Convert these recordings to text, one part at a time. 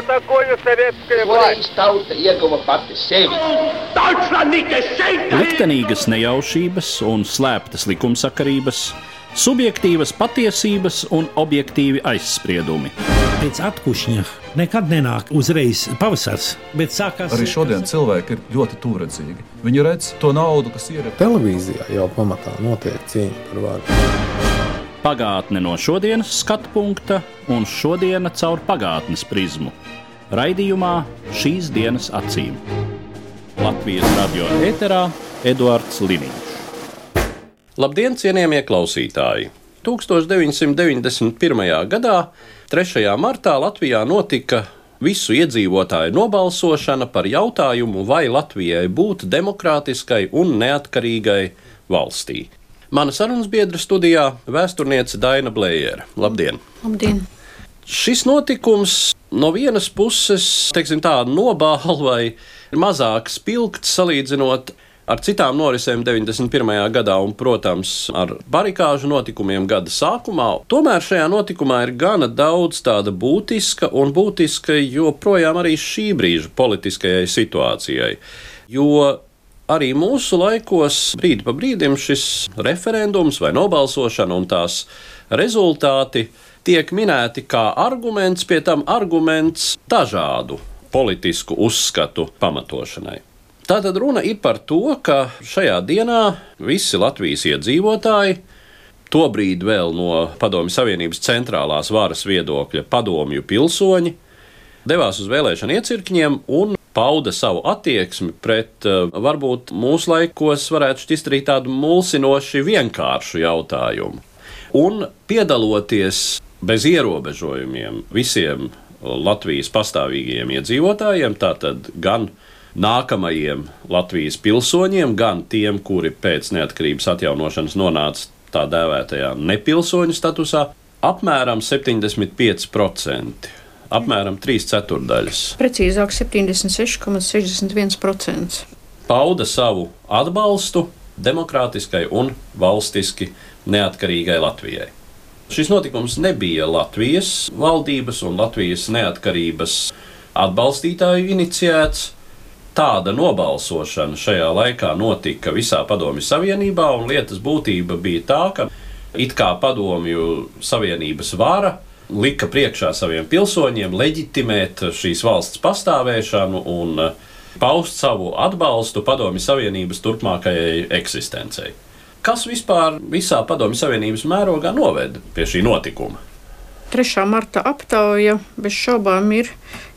такое советская власть? Tauta ieguva pati sevi. Liktenīgas nejaušības un slēptas likumsakarības, subjektīvas patiesības un objektīvi aizspriedumi. Pēc atkušņa nekad nenāk uzreiz pavasars, bet sākās... Arī šodien cilvēki ir ļoti tūredzīgi. Viņi redz to naudu, kas ir. Televīzijā jau pamatā notiek cīņa par varu. Pagātne no šodienas skatu punkta un šodiena caur pagātnes prizmu. Raidījumā Šīs dienas acīm. Latvijas radio ēterā Eduards Liniņš. Labdien, cienījamie klausītāji! 1991. gadā, 3. martā, Latvijā notika visu iedzīvotāju nobalsošana par jautājumu, vai Latvijai būt demokrātiskai un neatkarīgai valstī. Mana sarunas biedra studijā vēsturniece Daina Blējere. Labdien! Labdien! Šis notikums no vienas puses, teiksim tā, nobāla vai mazāk spilgts salīdzinot ar citām norisēm 91. gadā un, protams, ar barikāžu notikumiem gada sākumā. Tomēr šajā notikumā ir gana daudz tāda būtiska un būtiska joprojām arī šī brīža politiskajai situācijai. Jo arī mūsu laikos brīdi pa brīdim šis referendums vai nobalsošana un tās rezultāti tiek minēti kā arguments, pie tam arguments dažādu politisku uzskatu pamatošanai. Tātad runa ir par to, ka šajā dienā visi Latvijas iedzīvotāji, tobrīd vēl no Padomju Savienības centrālās varas viedokļa padomju pilsoņi, devās uz vēlēšanu iecirkņiem un pauda savu attieksmi pret, varbūt mūsu laikos varētu šķist arī tādu mulsinoši vienkāršu jautājumu. Un piedaloties bez ierobežojumiem visiem Latvijas pastāvīgajiem iedzīvotājiem, tātad gan nākamajiem Latvijas pilsoņiem, gan tiem, kuri pēc neatkarības atjaunošanas nonāca tā dēvētajā nepilsoņu statusā, apmēram 75%. Apmēram 3/4. Precīzāk 76,61%. Pauda savu atbalstu demokrātiskai un valstiski neatkarīgai Latvijai. Šis notikums nebija Latvijas valdības un Latvijas neatkarības atbalstītāju iniciēts. Tāda nobalsošana šajā laikā notika visā Padomju Savienībā, un lietas būtība bija tā, ka it kā Padomju Savienības vara lika priekšā saviem pilsoņiem leģitimēt šīs valsts pastāvēšanu un paust savu atbalstu Padomju Savienības turpmākajai eksistencei. Kas vispār visā Padomju Savienības mērogā noveda pie šī notikuma? 3. marta aptauja bez šaubām ir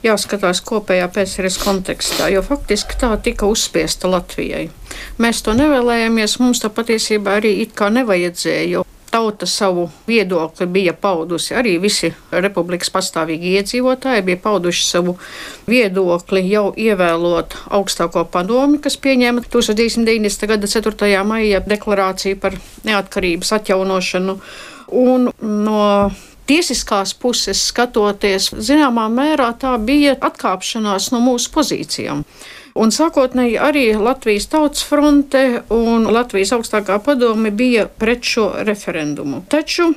jāskatās kopējā PSRS kontekstā, jo faktiski tā tika uzspiesta Latvijai. Mēs to nevēlējāmies, mums tā patiesībā arī it kā nevajadzēja, jo tauta savu viedokli bija paudusi, arī visi republikas pastāvīgi iedzīvotāji bija pauduši savu viedokli jau ievēlot augstāko padomi, kas pieņēma 1990. gada 4. maija deklarāciju par neatkarības atjaunošanu. Un no tiesiskās puses skatoties, zināmā mērā tā bija atkāpšanās no mūsu pozīcijām. Un sākotnēji arī Latvijas Tautas fronte un Latvijas augstākā padome bija pret šo referendumu. Taču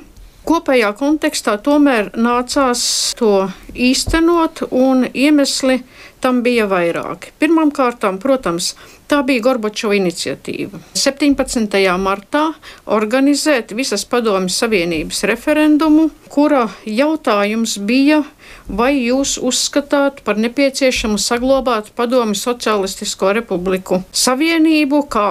kopējā kontekstā tomēr nācās to īstenot, un iemesli tam bija vairāki. Pirmkārtām, protams, tā bija Gorbačova iniciatīva. 17. martā organizēt visas Padomju Savienības referendumu, kura jautājums bija, vai jūs uzskatāt par nepieciešamu saglabāt Padomju Socialistisko Republiku Savienību kā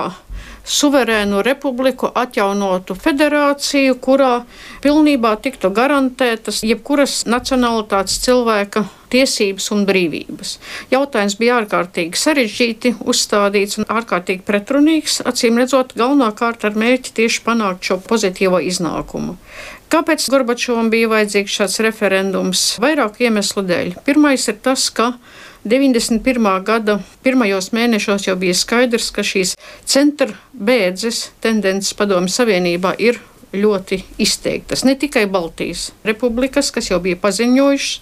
suverēnu republiku, atjaunotu federāciju, kurā pilnībā tiktu garantētas jebkuras nacionalitātes cilvēka tiesības un brīvības. Jautājums bija ārkārtīgi sarežģīti uzstādīts un ārkārtīgi pretrunīgs, acīm redzot, galvenokārt ar mērķi tieši panākt šo pozitīvo iznākumu. Kāpēc Gorbačovam bija vajadzīgs šāds referendums? Vairāku iemeslu dēļ. Pirmais ir tas, ka 91. gada pirmajos mēnešos jau bija skaidrs, ka šīs centra bēdzes tendences Padomju Savienībā ir ļoti izteiktas. Ne tikai Baltijas republikas, kas jau bija paziņojušas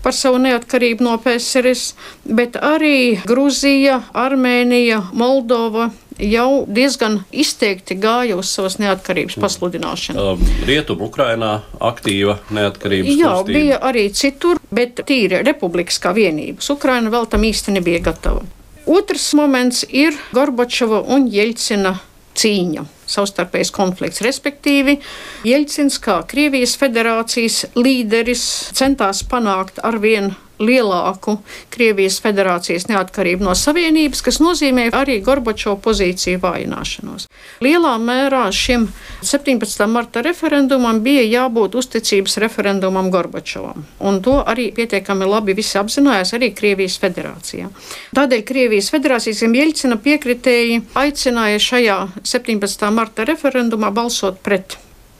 par savu neatkarību no PSRS, bet arī Gruzija, Armēnija, Moldova, jau diezgan izteikti gāja uz savas neatkarības pasludināšanu. Rietumu Ukrainā aktīva neatkarības Jā, kustība. bija arī citur, bet tīri republikas kā vienības. Ukraina vēl tam īsti nebija gatava. Otrs moments ir Gorbačova un Jeļcina cīņa, savstarpējs konflikts. Respektīvi, Jeļcins kā Krievijas federācijas līderis centās panākt arvien lielāku Krievijas federācijas neatkarību no Savienības, kas nozīmē arī Gorbačova pozīciju vājināšanos. Lielā mērā šim 17. marta referendumam bija jābūt uzticības referendumam Gorbačovam, un to arī pietiekami labi visi apzinājās arī Krievijas federācijā. Tādēļ Krievijas federācijas Jeļcina piekritēji aicināja šajā 17. marta referendumā balsot pret.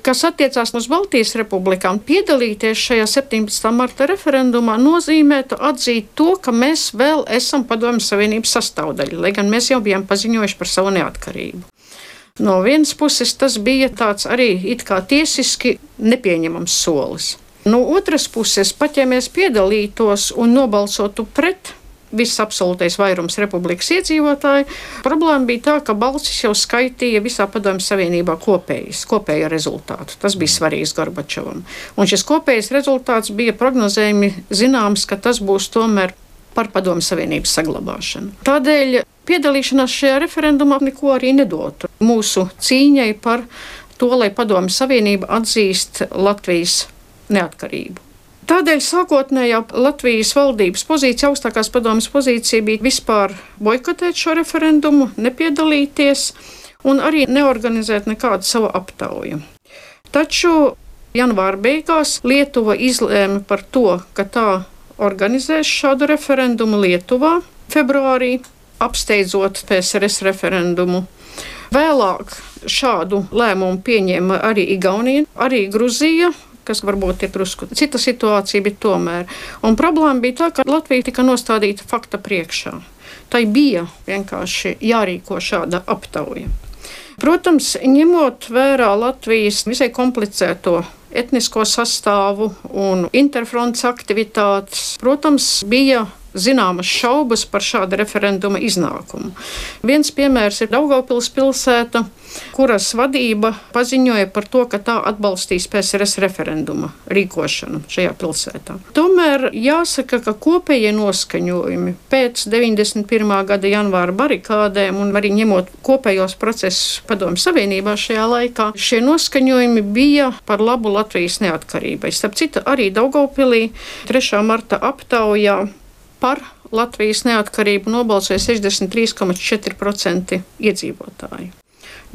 Kas attiecās uz Baltijas republikām, piedalīties šajā 17. marta referendumā nozīmētu atzīt to, ka mēs vēl esam Padomju Savienības sastāvdaļa, lai gan mēs jau bijām paziņojuši par savu neatkarību. No vienas puses tas bija tāds arī it kā tiesiski nepieņemams solis. No otras puses, pat ja mēs piedalītos un nobalsotu pret, viss absolūtais vairums republikas iedzīvotāji, problēma bija tā, ka balsis jau skaitīja visā Padomju Savienībā kopējo rezultātu. Tas bija svarīgs Gorbačovam. Un šis kopējais rezultāts bija prognozējumi zināms, ka tas būs tomēr par Padomju Savienības saglabāšanu. Tādēļ piedalīšanās šajā referendumā neko arī nedotu mūsu cīņai par to, lai Padomju Savienība atzīst Latvijas neatkarību. Tādēļ sākotnējā Latvijas valdības pozīcija, augstākās padomjas pozīcija bija vispār boikotēt šo referendumu, nepiedalīties un arī neorganizēt nekādu savu aptauju. Taču janvāra beigās Lietuva izlēma par to, ka tā organizēs šādu referendumu Lietuvā februārī, apsteidzot PSRS referendumu. Vēlāk šādu lēmumu pieņēma arī Igaunija, arī Gruzija, kas varbūt ir drusku cita situācija, bet tomēr. Un problēma bija tā, ka Latvija tika nostādīta fakta priekšā. Tai bija vienkārši jārīko šāda aptauja. Protams, ņemot vērā Latvijas visai komplicēto etnisko sastāvu un interfrontes aktivitātes, protams, bija zināmas šaubas par šāda referenduma iznākumu. Viens piemērs ir Daugavpils pilsēta, kuras vadība paziņoja par to, ka tā atbalstīs PSRS referenduma rīkošanu šajā pilsētā. Tomēr jāsaka, ka kopējie noskaņojumi pēc 91. gada janvāra barikādēm un arī ņemot kopējos procesus Padomju Savienībā šajā laikā, šie noskaņojumi bija par labu Latvijas neatkarībai. Starp citu, arī Daugavpilī 3. marta aptaujā par Latvijas neatkarību nobalsoja 63,4% iedzīvotāji.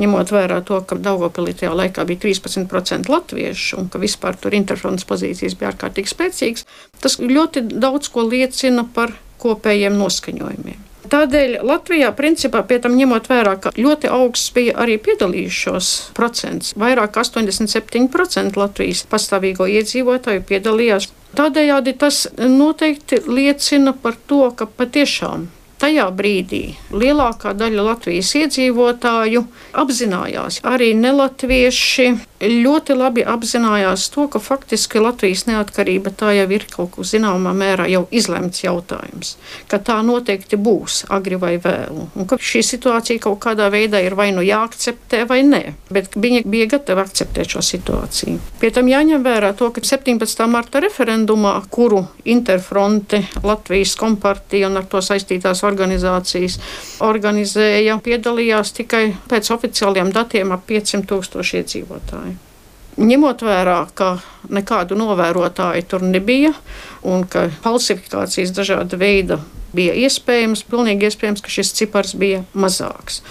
Ņemot vērā to, ka Daugavpilī tajā laikā bija 13% latviešu un ka vispār tur interfrontes pozīcijas bija ārkārtīgi spēcīgas, tas ļoti daudz ko liecina par kopējiem noskaņojumiem. Tādēļ Latvijā, principā, pie tam ņemot vērā, ka ļoti augsts bija arī piedalījušos procents, vairāk 87% Latvijas pastāvīgo iedzīvotāju piedalījās. Tādējādi tas noteikti liecina par to, ka patiešām tajā brīdī lielākā daļa Latvijas iedzīvotāju apzinājās, arī nelatvieši ļoti labi apzinājās to, ka faktiski Latvijas neatkarība tā jau ir kaut kur zināmā mērā jau izlemts jautājums, ka tā noteikti būs agri vai vēlu, un ka šī situācija kaut kādā veidā ir vai nu jāakceptē vai nē, bet viņi bija gatavi akceptēt šo situāciju. Pie tam jāņem vērā to, ka 17. marta referendumā, kuru Interfronte, Latvijas kompartija un ar to saistītās organizācijas organizēja, piedalījās tikai pēc oficiāliem datiem ap 500,000 iedzīvotāju. Ņemot vērā, ka nekādu novērotāju tur nebija un ka falsifikācijas dažāda veida bija iespējams, pilnīgi iespējams, ka šis cipars bija mazāks.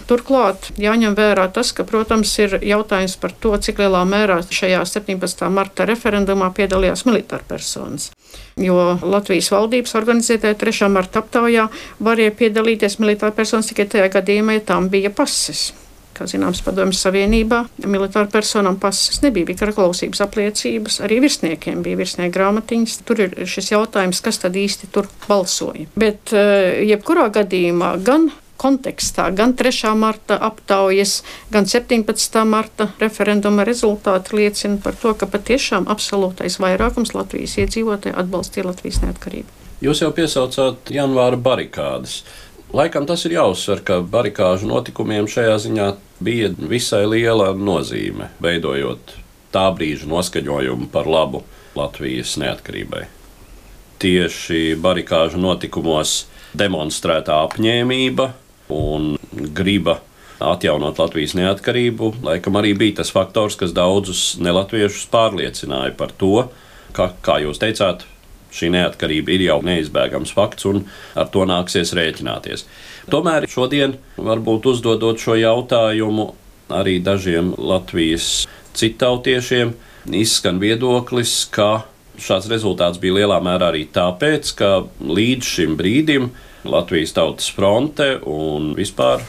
Turklāt jāņem vērā tas, ka, protams, ir jautājums par to, cik lielā mērā šajā 17. marta referendumā piedalījās militārpersonas. Jo Latvijas valdības organizētajā 3. marta aptaujā varēja piedalīties militārpersonas tikai tajā gadījumā, ja tām bija pases. Kā zināms, Padomju Savienībā militāru personām pases nebija, bija karaklausības apliecības, arī virsniekiem bija virsnieku grāmatiņas. Tur ir šis jautājums, kas tad īsti tur balsoja. Bet jebkurā gadījumā gan kontekstā, gan 3. marta aptaujas, gan 17. marta referenduma rezultāti liecina par to, ka patiešām absolūtais vairākums Latvijas iedzīvotāji atbalstīja Latvijas neatkarību. Jūs jau piesaucāt janvāra barikādes. Laikam tas ir jāuzsver, ka barikāžu notikumiem šajā ziņā bija visai liela nozīme, veidojot tā brīža noskaņojumu par labu Latvijas neatkarībai. Tieši barikāžu notikumos demonstrētā apņēmība un griba atjaunot Latvijas neatkarību, laikam arī bija tas faktors, kas daudzus nelatviešus pārliecināja par to, ka, kā jūs teicāt, šī neatkarība ir jau neizbēgams fakts un ar to nāksies rēķināties. Tomēr šodien, varbūt uzdodot šo jautājumu arī dažiem Latvijas citautiešiem, izskan viedoklis, ka šāds rezultāts bija lielā mērā arī tāpēc, ka līdz šim brīdim Latvijas Tautas fronte un vispār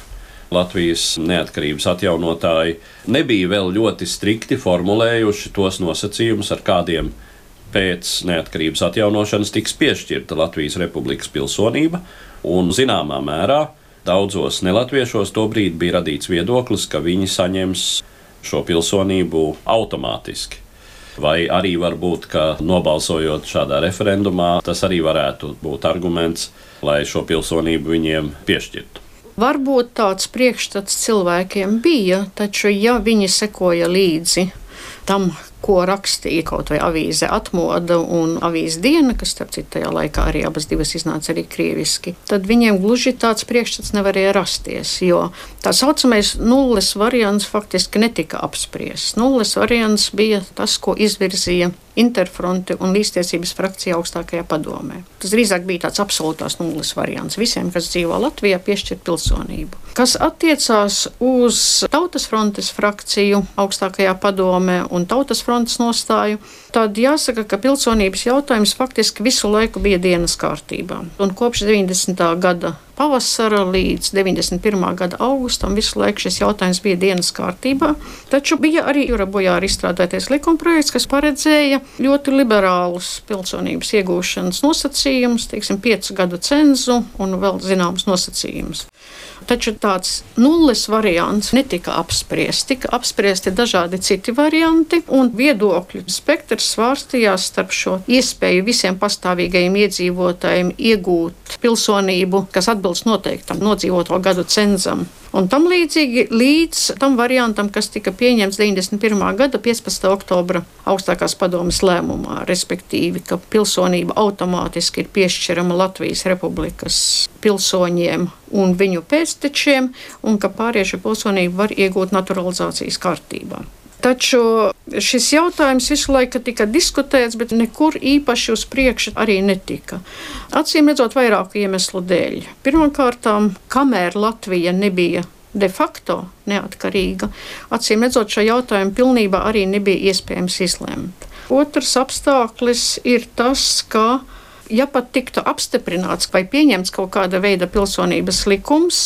Latvijas neatkarības atjaunotāji nebija vēl ļoti strikti formulējuši tos nosacījumus, ar kādiem pēc neatkarības atjaunošanas tiks piešķirta Latvijas Republikas pilsonība, un zināmā mērā daudzos nelatviešos tobrīd bija radīts viedoklis, ka viņi saņems šo pilsonību automātiski. Vai arī varbūt, ka nobalsojot šādā referendumā, tas arī varētu būt arguments, lai šo pilsonību viņiem piešķirtu. Varbūt tāds priekšstats cilvēkiem bija, taču ja viņi sekoja līdzi tam, ko rakstīja kaut vai avīze Atmoda un avīze Diena, kas, starp citu, tajā laikā arī abas divas iznāca arī krieviski, tad viņiem gluži tāds priekšstats nevarēja rasties, jo tā saucamais nulles variants faktiski netika apspriests. Nulles variants bija tas, ko izvirzīja Interfronte un Līdztiesības frakcija augstākajā padomē. Tas drīzāk bija tāds absolūtās nulles variants visiem, kas dzīvo Latvijā, piešķirt pilsonību. Kas attiecās uz Tautas frontes frakciju augstākajā padomē un Tautas frontes nostāju, tad jāsaka, ka pilsonības jautājums faktiski visu laiku bija dienas kārtībā. Un kopš 90. gada pavasara līdz 91. gada augustam visu laiku šis jautājums bija dienas kārtībā. Taču bija arī Jura Bojāra izstrādātais likumprojekts, kas paredzēja ļoti liberālus pilsonības iegūšanas nosacījumus, 5 gadu cenzu un vēl zināmas nosacījumus. Taču tāds nulles variants netika apspriests. Tika apspriesti dažādi citi varianti, un viedokļu spektrs svārstījās starp šo iespēju visiem pastāvīgajiem iedzīvotājiem iegūt pilsonību, kas atbilst noteiktam nodzīvoto gadu cenzam. Un tam līdzīgi līdz tam variantam, kas tika pieņemts 91. gada 15. oktobra augstākās padomes lēmumā, respektīvi, ka pilsonība automātiski ir piešķirama Latvijas Republikas pilsoņiem un viņu pēctečiem, un ka pārējie pilsonību var iegūt naturalizācijas kārtībā. Taču šis jautājums visu laiku tika diskutēts, bet nekur īpaši uz priekšu arī netika. Acīm redzot vairāku iemeslu dēļ. Pirmkārt, kamēr Latvija nebija de facto neatkarīga, acīm redzot šo jautājumu pilnībā arī nebija iespējams izlemt. Otrs apstākļis ir tas, ka, ja pat tiktu apstiprināts vai pieņemts kaut kāda veida pilsonības likums,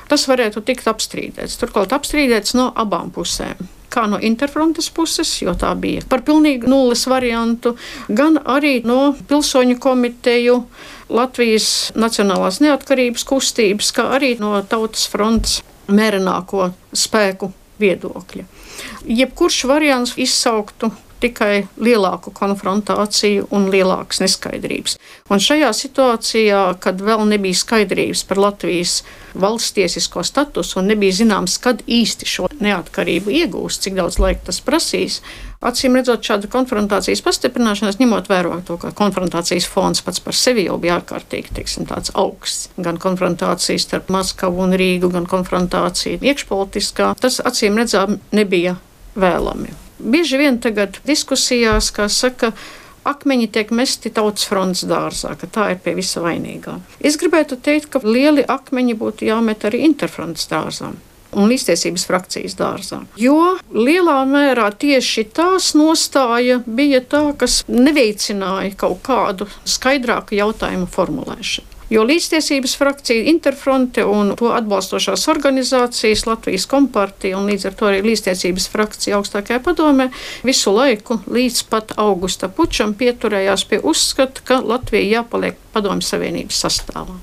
tas varētu tikt apstrīdēts. Turklāt apstrīdēts no abām pusēm. Kā no Interfrontes puses, jo tā bija par pilnīgi nulles variantu, gan arī no pilsoņu komiteju, Latvijas Nacionālās neatkarības kustības, kā arī no Tautas frontes mērenāko spēku viedokļa. Jebkurš variants izsauktu tikai lielāku konfrontāciju un lielākas neskaidrības. Un šajā situācijā, kad vēl nebija skaidrības par Latvijas valsts tiesisko statusu un nebija zināms, kad īsti šo neatkarību iegūs, cik daudz laika tas prasīs, acīm redzot šāda konfrontācijas pastiprināšanās, ņemot vērā to, ka konfrontācijas fons pats par sevi jau bija ārkārtīgi, tāds augsts. Gan konfrontācijas starp Maskavu un Rīgu, gan konfrontācija iekšpolitiskā, tas acīm redzām nebija vēlami. Bieži vien tagad diskusijās, kā saka, akmeņi tiek mesti Tautas frontes dārzā, ka tā ir pie visa vainīgā. Es gribētu teikt, ka lieli akmeņi būtu jāmet arī Interfrontes dārzā un Līdztiesības frakcijas dārzā. Jo lielā mērā tieši tās nostāja bija tā, kas neveicināja kaut kādu skaidrāku jautājumu formulēšanu. Jo Līdztiesības frakcija, Interfronte un to atbalstošās organizācijas, Latvijas kompartija un līdz ar to arī Līdztiesības frakcija augstākajā padomē visu laiku līdz pat augusta pučam pieturējās pie uzskata, ka Latvija jāpaliek Padomju Savienības sastāvā.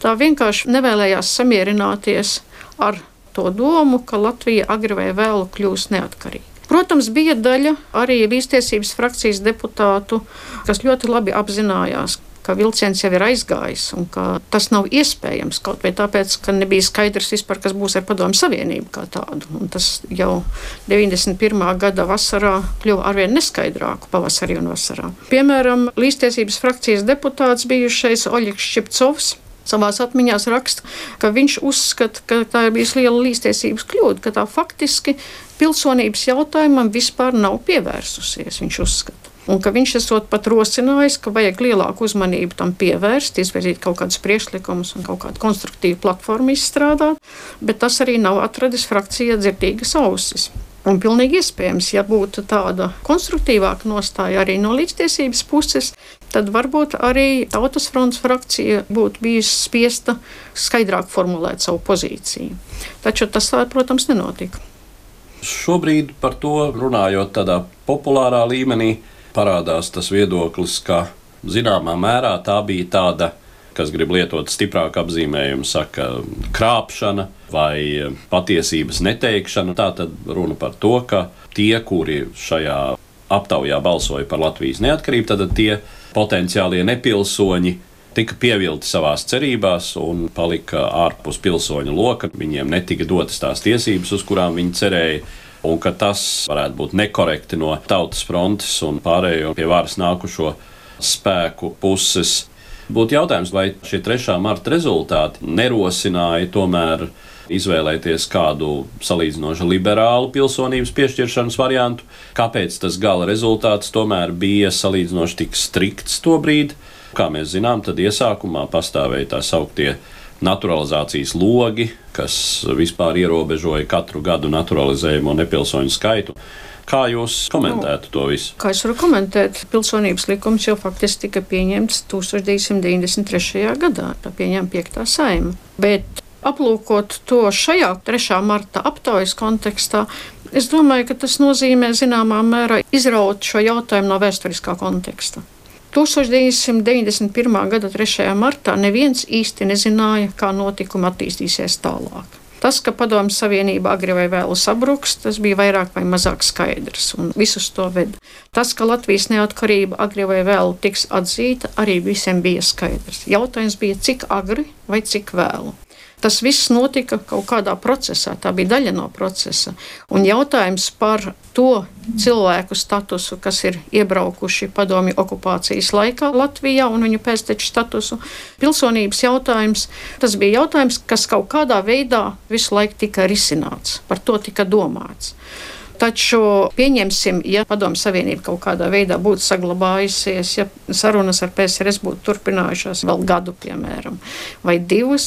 Tā vienkārši nevēlējās samierināties ar to domu, ka Latvija agri vai vēlu kļūs neatkarīga. Protams, bija daļa arī līdztiesības frakcijas deputātu, kas ļoti labi apzinājās, ka vilciens jau ir aizgājis un ka tas nav iespējams kaut vai tāpēc, ka nebija skaidrs vispār, kas būs ar Padomju Savienību kā tādu. Un tas jau 91. gada vasarā kļuva arvien neskaidrāku pavasarī un vasarā. Piemēram, līdztiesības frakcijas deputāts bijušais Oļegs Šķipcovs savās atmiņās raksta, ka viņš uzskata, ka tā ir bijusi liela līdztiesības kļūda, ka tā faktiski pilsonības jautājumam vispār nav pievērsusies, viņš uzskata. Un ka viņš esot pat rosinājis, ka vajag lielāku uzmanību tam pievērst, izvirzīt kaut kādus priekšlikumus un kaut kādu konstruktīvu platformu izstrādāt, bet tas arī nav atradis frakcijā dzirdīgas ausis. Un pilnīgi iespējams, ja būtu tāda konstruktīvāka nostāja arī no līdztiesības puses, tad varbūt arī Tautas frontes frakcija būtu bijusi spiesta skaidrāk formulēt savu pozīciju. Taču tas, protams, nenotika. Šobrīd par to runājot tādā populārā līmenī, parādās tas viedoklis, ka zināmā mērā tā bija tāda, kas grib lietot stiprāku apzīmējumu, saka krāpšana vai patiesības neteikšana. Tā tad runa par to, ka tie, kuri šajā aptaujā balsoja par Latvijas neatkarību, tad tie potenciālie nepilsoņi tika pievilti savās cerībās un palika ārpus pilsoņu loka. Viņiem netika dotas tās tiesības, uz kurām viņi cerēja. Un ka tas varētu būt nekorekti no Tautas frontes un pārējo pie varas nākušo spēku puses. Būtu jautājums, vai šie 3. marta rezultāti nerosināja tomēr izvēlēties kādu salīdzinoši liberālu pilsonības piešķiršanas variantu, kāpēc tas gala rezultāts tomēr bija salīdzinoši tik strikts tobrīd. Kā mēs zinām, tad iesākumā pastāvēja tā sauktie naturalizācijas logi, kas vispār ierobežoja katru gadu naturalizējumu nepilsoņu skaitu. Kā jūs komentētu to visu? Kā es varu komentēt? Pilsonības likums jau faktiski tika pieņemts 1993. gadā, tā pieņēma 5. Saeima. Bet aplūkot to šajā 3. marta aptaujas kontekstā, es domāju, ka tas nozīmē zināmā mērā izraut šo jautājumu no vēsturiskā konteksta. 1991. gada 3. martā neviens īsti nezināja, kā notikumi attīstīsies tālāk. Tas, ka Padomju Savienība agri vai vēlu sabruks, tas bija vairāk vai mazāk skaidrs, un visus to veda. Tas, ka Latvijas neatkarība agri vai vēlu tiks atzīta, arī visiem bija skaidrs. Jautājums bija, cik agri vai cik vēlu. Tas viss notika kaut kādā procesā, tā bija daļa no procesa. Un jautājums par to cilvēku statusu, kas ir iebraukuši padomju okupācijas laikā Latvijā un viņu pēcteču statusu, pilsonības jautājums, tas bija jautājums, kas kaut kādā veidā visu laiku tika risināts, par to tika domāts. Taču pieņemsim, ja Padomju Savienība kaut kādā veidā būtu saglabājusies, ja sarunas ar PSRS būtu turpinājušās vēl gadu, piemēram, vai 2,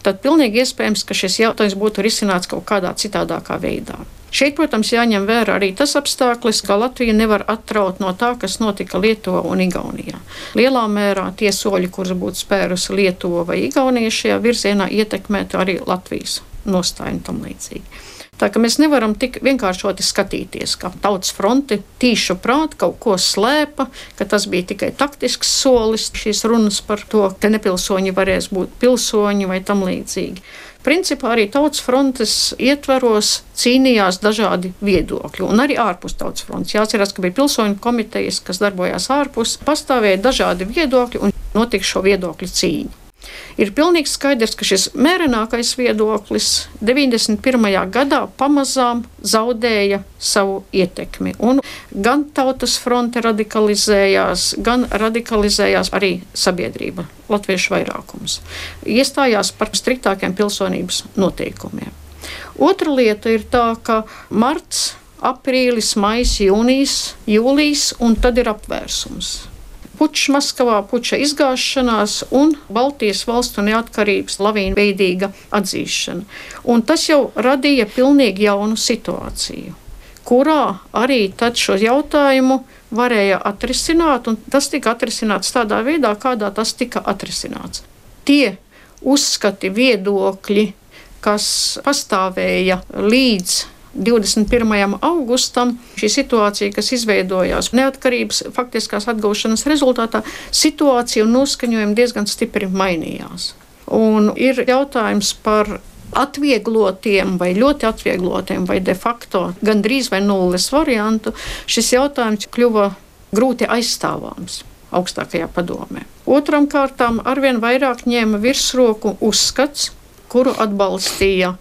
tad pilnīgi iespējams, ka šis jautājums būtu risināts kaut kādā citādākā veidā. Šeit, protams, jāņem vērā arī tas apstākļus, ka Latvija nevar atraut no tā, kas notika Lietuvā un Igaunijā. Lielā mērā tie soļi, kurus būtu spērusi Lietuva vai Igaunija šajā virzienā, ietekmētu arī Latvijas nostāju un tam līdzīgi. Tā ka mēs nevaram tik vienkāršoti skatīties, ka Tautas fronte tīšu prāt kaut ko slēpa, ka tas bija tikai taktisks solis, šīs runas par to, ka nepilsoņi varēs būt pilsoņi vai tam līdzīgi. Principā arī Tautas frontes ietveros cīnījās dažādi viedokļi, un arī ārpus Tautas frontes. Jāatcerās, ka bija pilsoņu komitejas, kas darbojās ārpus, pastāvēja dažādi viedokļi un notika šo viedokļu cīņu. Ir pilnīgi skaidrs, ka šis mērenākais viedoklis 91. gadā pamazām zaudēja savu ietekmi. Un gan Tautas fronte radikalizējās, gan radikalizējās arī sabiedrība, latviešu vairākums. Iestājās par striktākiem pilsonības noteikumiem. Otra lieta ir tā, ka marts, aprīlis, maijs, jūnijas, jūlijs un tad ir apvērsums. Pučs Maskavā, puča izgāšanās un Baltijas valstu neatkarības lavīnveidīga atzīšana. Un tas jau radīja pilnīgi jaunu situāciju, kurā arī tad šo jautājumu varēja atrisināt, un tas tika atrisināts tādā veidā, kādā tas tika atrisināts. Tie uzskati, viedokļi, kas pastāvēja līdz 21. augustam, šī situācija, kas izveidojās neatkarības faktiskās atgūšanas rezultātā, situācija un noskaņojumi diezgan stipri mainījās. Un ir jautājums par atvieglotiem vai ļoti atvieglotiem vai de facto gandrīz vai nulles variantu, šis jautājums kļuva grūti aizstāvāms augstākajā padomē. Otram kārtām arvien vairāk ņēma virsroku uzskats, kuru atbalstīja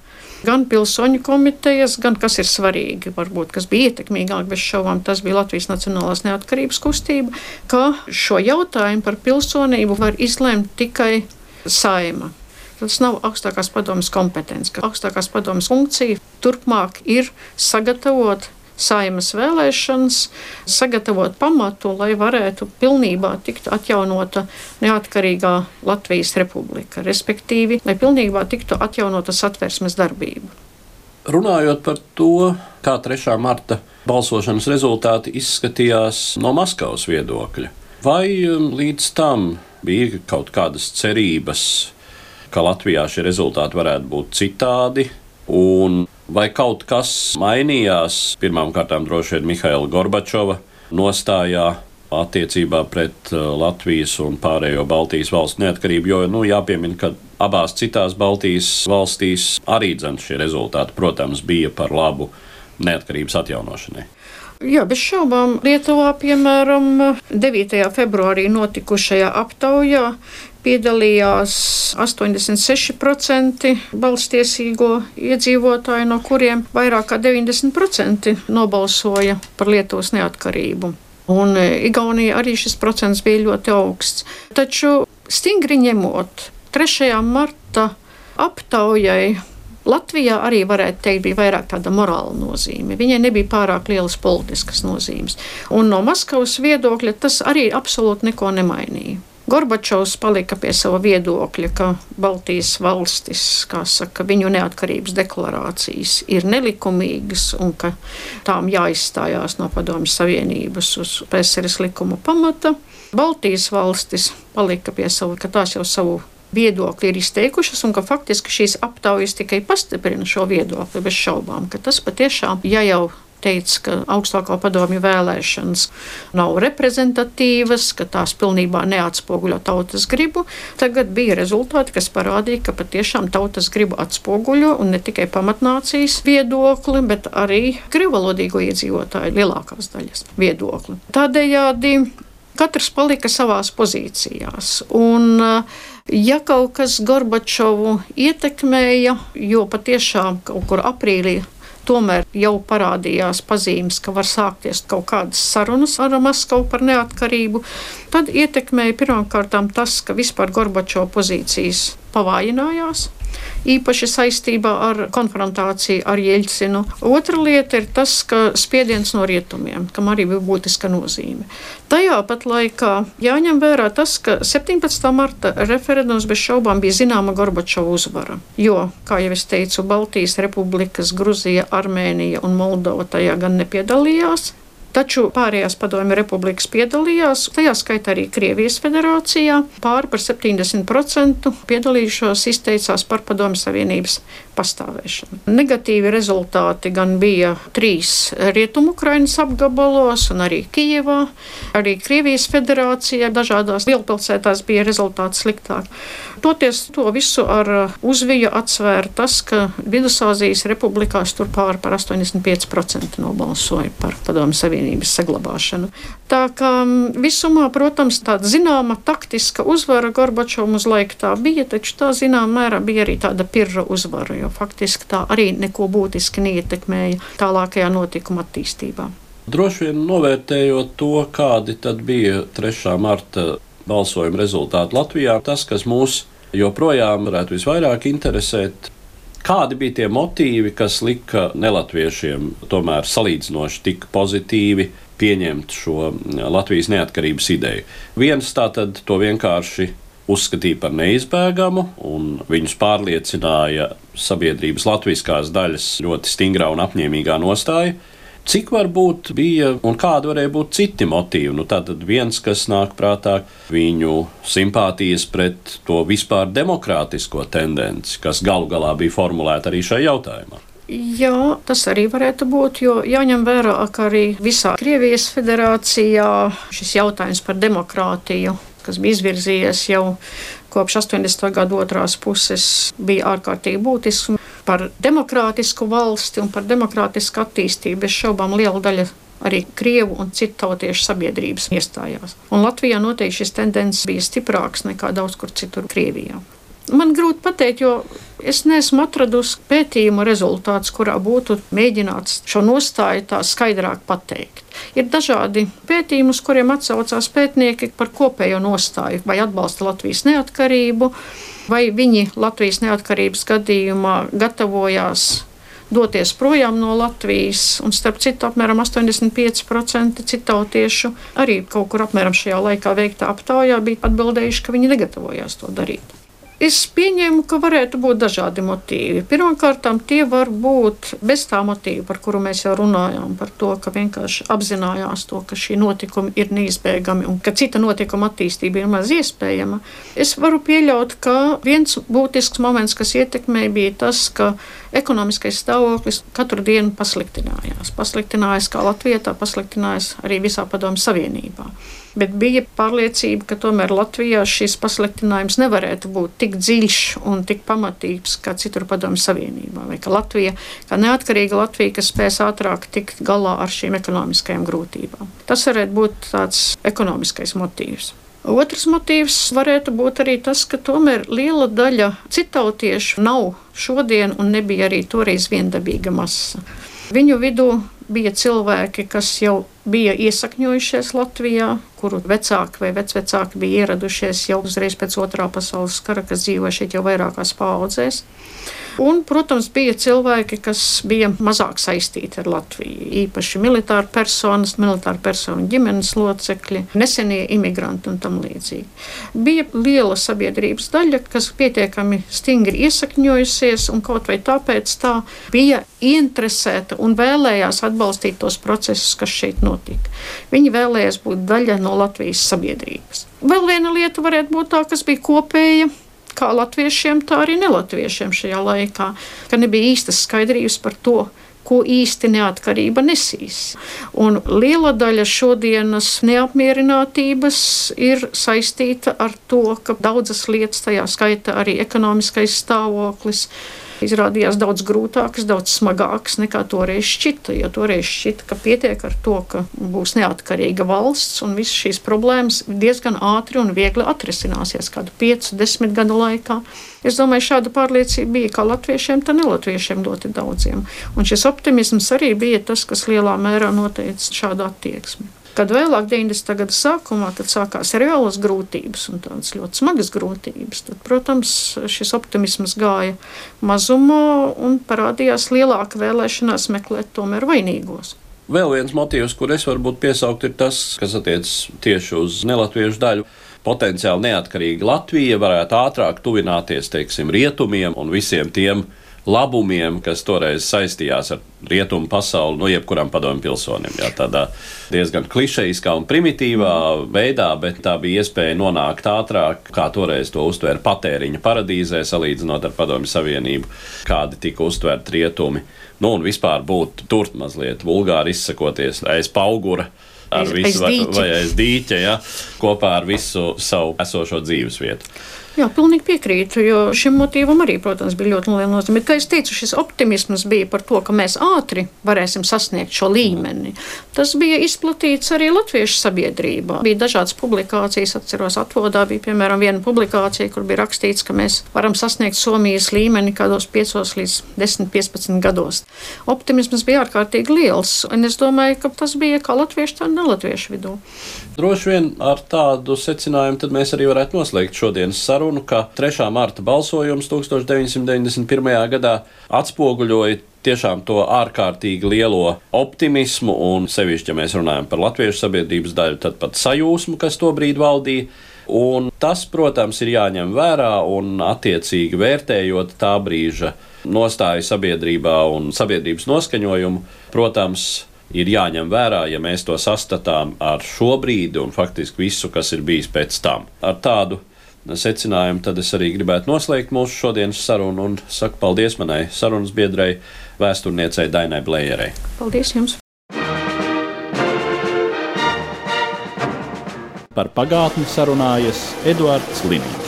gan pilsoņu komitejas, gan, kas ir svarīgi, varbūt, kas bija ietekmīgāk bez šaubām, tas bija Latvijas Nacionālās neatkarības kustība, ka šo jautājumu par pilsonību var izlemt tikai Saeima. Tas nav augstākās padomes kompetence, ka augstākās padomes funkcija turpmāk ir sagatavot Saeimas vēlēšanas, sagatavot pamatu, lai varētu pilnībā tikt atjaunota neatkarīgā Latvijas republika, respektīvi, lai pilnībā tiktu atjaunota Satversmes darbība. Runājot par to, kā 3. marta balsošanas rezultāti izskatījās no Maskavas viedokļa, vai līdz tam bija kaut kādas cerības, ka Latvijā šie rezultāti varētu būt citādi, un vai kaut kas mainījās pirmām kārtām droši vien Mihaila Gorbačova nostājā attiecībā pret Latvijas un pārējo Baltijas valstu neatkarību, jo jāpiemina, ka abās citās Baltijas valstīs arī šie rezultāti, protams, bija par labu neatkarības atjaunošanai. Jā, bez šaubām Lietuvā, piemēram, 9. februārī notikušajā aptaujā piedalījās 86% balstiesīgo iedzīvotāju, no kuriem vairāk kā 90% nobalsoja par Lietuvas neatkarību. Un Igaunijā arī šis procents bija ļoti augsts. Taču stingri ņemot 3. marta aptaujai, Latvijā arī varētu teikt, bija vairāk tāda morāla nozīme. Viņai nebija pārāk lielas politiskas nozīmes. Un no Maskavas viedokļa tas arī absolūti neko nemainīja. Gorbačovs palika pie sava viedokļa, ka Baltijas valstis, kā saka, viņu neatkarības deklarācijas ir nelikumīgas un ka tām jāizstājās no Padomju Savienības uz PSRS likuma pamata. Baltijas valstis palika pie sava, ka tās jau savu viedokļi ir izteikušas un ka faktiski šīs aptaujas tikai pastiprina šo viedokli bez šaubām, ka tas patiešām, ja jau teica, ka augstāko padomju vēlēšanas nav reprezentatīvas, ka tās pilnībā neatspoguļo tautas gribu, tagad bija rezultāti, kas parādīja, ka patiešām tautas gribu atspoguļo un ne tikai pamatnācijas viedokli, bet arī krievalodīgo iedzīvotāju lielākās daļas viedokli. Tādējādi katrs palika savās pozīcijās. Un ja kaut kas Gorbačovu ietekmēja, jo patiešām kaut kur aprīlī tomēr jau parādījās pazīmes, ka var sākties kaut kādas sarunas ar Maskavu par neatkarību, tad ietekmēja pirmkārtām tas, ka vispār Gorbačova pozīcijas pavājinājās, īpaši saistībā ar konfrontāciju ar Jeļcinu. Otra lieta ir tas, ka spiediens no rietumiem, kam arī bija būtiska nozīme. Tajā pat laikā jāņem vērā tas, ka 17. marta referendums bez šaubām bija zināma Gorbačova uzvara, jo, kā jau es teicu, Baltijas republikas, Gruzija, Armēnija un Moldova tajā gan nepiedalījās, taču pārējās padomju republikas piedalījās, tajā skaitā arī Krievijas federācijā. Pāri par 70% piedalījušos izteicās par Padomju Savienības pastāvēšanu. Negatīvi rezultāti gan bija 3 Rietumu-Ukrainas apgabalos un arī Kijevā. Arī Krievijas federācijā dažādās lielpilsētās bija rezultāti sliktāk. Toties to visu ar uzviju atsvēra tas, ka Vidusāzijas republikās tur pāri par 85% nobalsoja par Padomju Savienības saglabāšanu. Tā kā visumā, protams, tāda zināma taktiska uzvara Gorbačovam uz laiku tā bija, taču tā zināmā mērā bija arī tāda pirra uzvara, jo faktiski tā arī neko būtiski neietekmēja tālākajā notikuma attīstībā. Droši vien novērtējot to, kādi tad bija 3. marta balsojuma rezultāti Latvijā, tas, kas mūs joprojām varētu visvairāk interesēt, kādi bija tie motīvi, kas lika nelatviešiem tomēr salīdzinoši tik pozitīvi pieņemt šo Latvijas neatkarības ideju. Viens tātad to vienkārši uzskatīja par neizbēgamu, un viņus pārliecināja sabiedrības latviskās daļas ļoti stingrā un apņēmīgā nostāja. Cik varbūt bija un kādi varēja būt citi motīvi? Tātad viens, kas nāk prātā, viņu simpātijas pret to vispār demokrātisko tendenci, kas galu galā bija formulēta arī šajā jautājumā. Jā, tas arī varētu būt, jo jāņem vērā, ka arī visā Krievijas federācijā šis jautājums par demokrātiju, kas bija izvirzījies jau kopš 80. gadu otrās puses, bija ārkārtīgi būtisks. Par demokrātisku valsti un par demokrātisku attīstību bez šaubām liela daļa arī krievu un citu tautiešu sabiedrības iestājās. Un Latvijā noteikti šis tendences bija stiprāks nekā daudz kur citur Krievijā. Man grūti pateikt, jo es neesmu atradusi pētījumu rezultātus, kurā būtu mēģināts šo nostāju tā skaidrāk pateikt. Ir dažādi pētījumi, uz kuriem atsaucās pētnieki par kopējo nostāju, vai atbalsta Latvijas neatkarību, vai viņi Latvijas neatkarības gadījumā gatavojās doties projām no Latvijas, un starp citu apmēram 85% citautiešu arī kaut kur apmēram šajā laikā veiktā aptaujā bija atbildējuši, ka viņi negatavojās to darīt. Es pieņēmu, ka varētu būt dažādi motīvi. Pirmkārt, tie var būt bez tā motīva, par kuru mēs jau runājām, par to, ka vienkārši apzinājās to, ka šī notikuma ir neizbēgami un ka cita notikuma attīstība ir maz iespējama. Es varu pieļaut, ka viens būtisks moments, kas ietekmēja, bija tas, ka ekonomiskais stāvoklis katru dienu pasliktinājās. Pasliktinājās kā Latvijā, tā pasliktinājās arī visā Padomju Savienībā. Bet bija pārliecība, ka tomēr Latvijā šis pasliktinājums nevarētu būt tik dziļš un tik pamatīgs kā citur Padomju Savienībā. Vai ka Latvija, kā neatkarīga Latvija, kas spēs ātrāk tikt galā ar šīm ekonomiskajām grūtībām. Tas varētu būt tāds ekonomiskais motīvs. Otrs motīvs varētu būt arī tas, ka tomēr liela daļa citautiešu nav šodien un nebija arī toreiz viendabīga masa. Viņu vidū bija cilvēki, kas jau bija iesakņojušies Latvijā, kuru vecāki vai vecvecāki bija ieradušies jau uzreiz pēc Otrā pasaules kara, kas dzīvoja šeit jau vairākās paaudzēs. Un, protams, bija cilvēki, kas bija mazāk saistīti ar Latviju, īpaši militāru personu ģimenes locekļi, nesenie imigranti un tam līdzīgi. Bija liela sabiedrības daļa, kas pietiekami stingri iesakņojusies un kaut vai tāpēc tā bija ieinteresēta un vēlējās atbalstīt tos procesus, kas šeit notika. Viņi vēlējās būt daļa no Latvijas sabiedrības. Vēl viena lieta varētu būt tā, kas bija kopēja, kā latviešiem, tā arī nelatviešiem šajā laikā, ka nebija īstas skaidrības par to, ko īsti neatkarība nesīs. Un liela daļa šodienas neapmierinātības ir saistīta ar to, ka daudzas lietas, tajā skaita arī ekonomiskais stāvoklis, izrādījās daudz grūtākas, daudz smagākas nekā toreiz šķita. Jo toreiz šķita, ka pietiek ar to, ka būs neatkarīga valsts un visas šīs problēmas diezgan ātri un viegli atrisināsies kādu 5-10 gadu laikā. Es domāju, šāda pārliecība bija kā latviešiem, tā nelatviešiem ļoti daudziem. Un šis optimisms arī bija tas, kas lielā mērā noteica šādu attieksmi. Kad vēlāk 90. gada sākumā, kad sākās reālas grūtības un tādas ļoti smagas grūtības, tad, protams, šis optimisms gāja mazumā un parādījās lielāka vēlēšanās meklēt tomēr vainīgos. Vēl viens motīvs, kur es varbūt piesaukt, ir tas, kas attiecas tieši uz nelatviešu daļu. Potenciāli neatkarīga Latvija varētu ātrāk tuvināties, teiksim, rietumiem un visiem tiem labumiem, kas toreiz saistījās ar rietumu pasauli, jebkuram padomju pilsonim. Jā, tādā diezgan klišejiskā un primitīvā veidā, bet tā bija iespēja nonākt ātrāk, kā toreiz to uztvēra patēriņa paradīzē, salīdzinot ar Padomju Savienību, kādi tika uztvērti rietumi. Un vispār būt tur mazliet vulgāri izsakoties aiz paugura, vai aiz dīķa, ja, kopā ar visu savu esošo dzīves vietu. Jā, pilnīgi piekrītu, jo šim motīvam arī, protams, bija ļoti liela nozīme. Kā es teicu, šis optimisms bija par to, ka mēs ātri varēsim sasniegt šo līmeni. Tas bija izplatīts arī latviešu sabiedrībā. Bija dažādas publikācijas, atceros, Atvodā bija, piemēram, viena publikācija, kur bija rakstīts, ka mēs varam sasniegt Somijas līmeni kādos 5 līdz 10-15 gados. Optimisms bija ārkārtīgi liels, un es domāju, ka tas bija kā latviešu, tā nelatviešu vidū. Droši vien ar tādu secinājumu tad mēs arī varētu noslēgt šodienas sarunu, ka 3. marta balsojums 1991. gadā atspoguļoja tiešām to ārkārtīgi lielo optimismu un sevišķi, ja mēs runājam par latviešu sabiedrības daļu, tad pat sajūsmu, kas tobrīd valdīja. Un tas, protams, ir jāņem vērā un attiecīgi vērtējot tā brīža nostāju sabiedrībā un sabiedrības noskaņojumu, protams, ir jāņem vērā, ja mēs to sastatām ar šo brīdi un faktiski visu, kas ir bijis pēc tam. Ar tādu secinājumu tad es arī gribētu noslēgt mūsu šodienas sarunu un saku paldies manai sarunas biedrei, vēsturniecei Dainai Blejerei. Paldies jums! Par pagātni sarunājas Eduards Liniņš.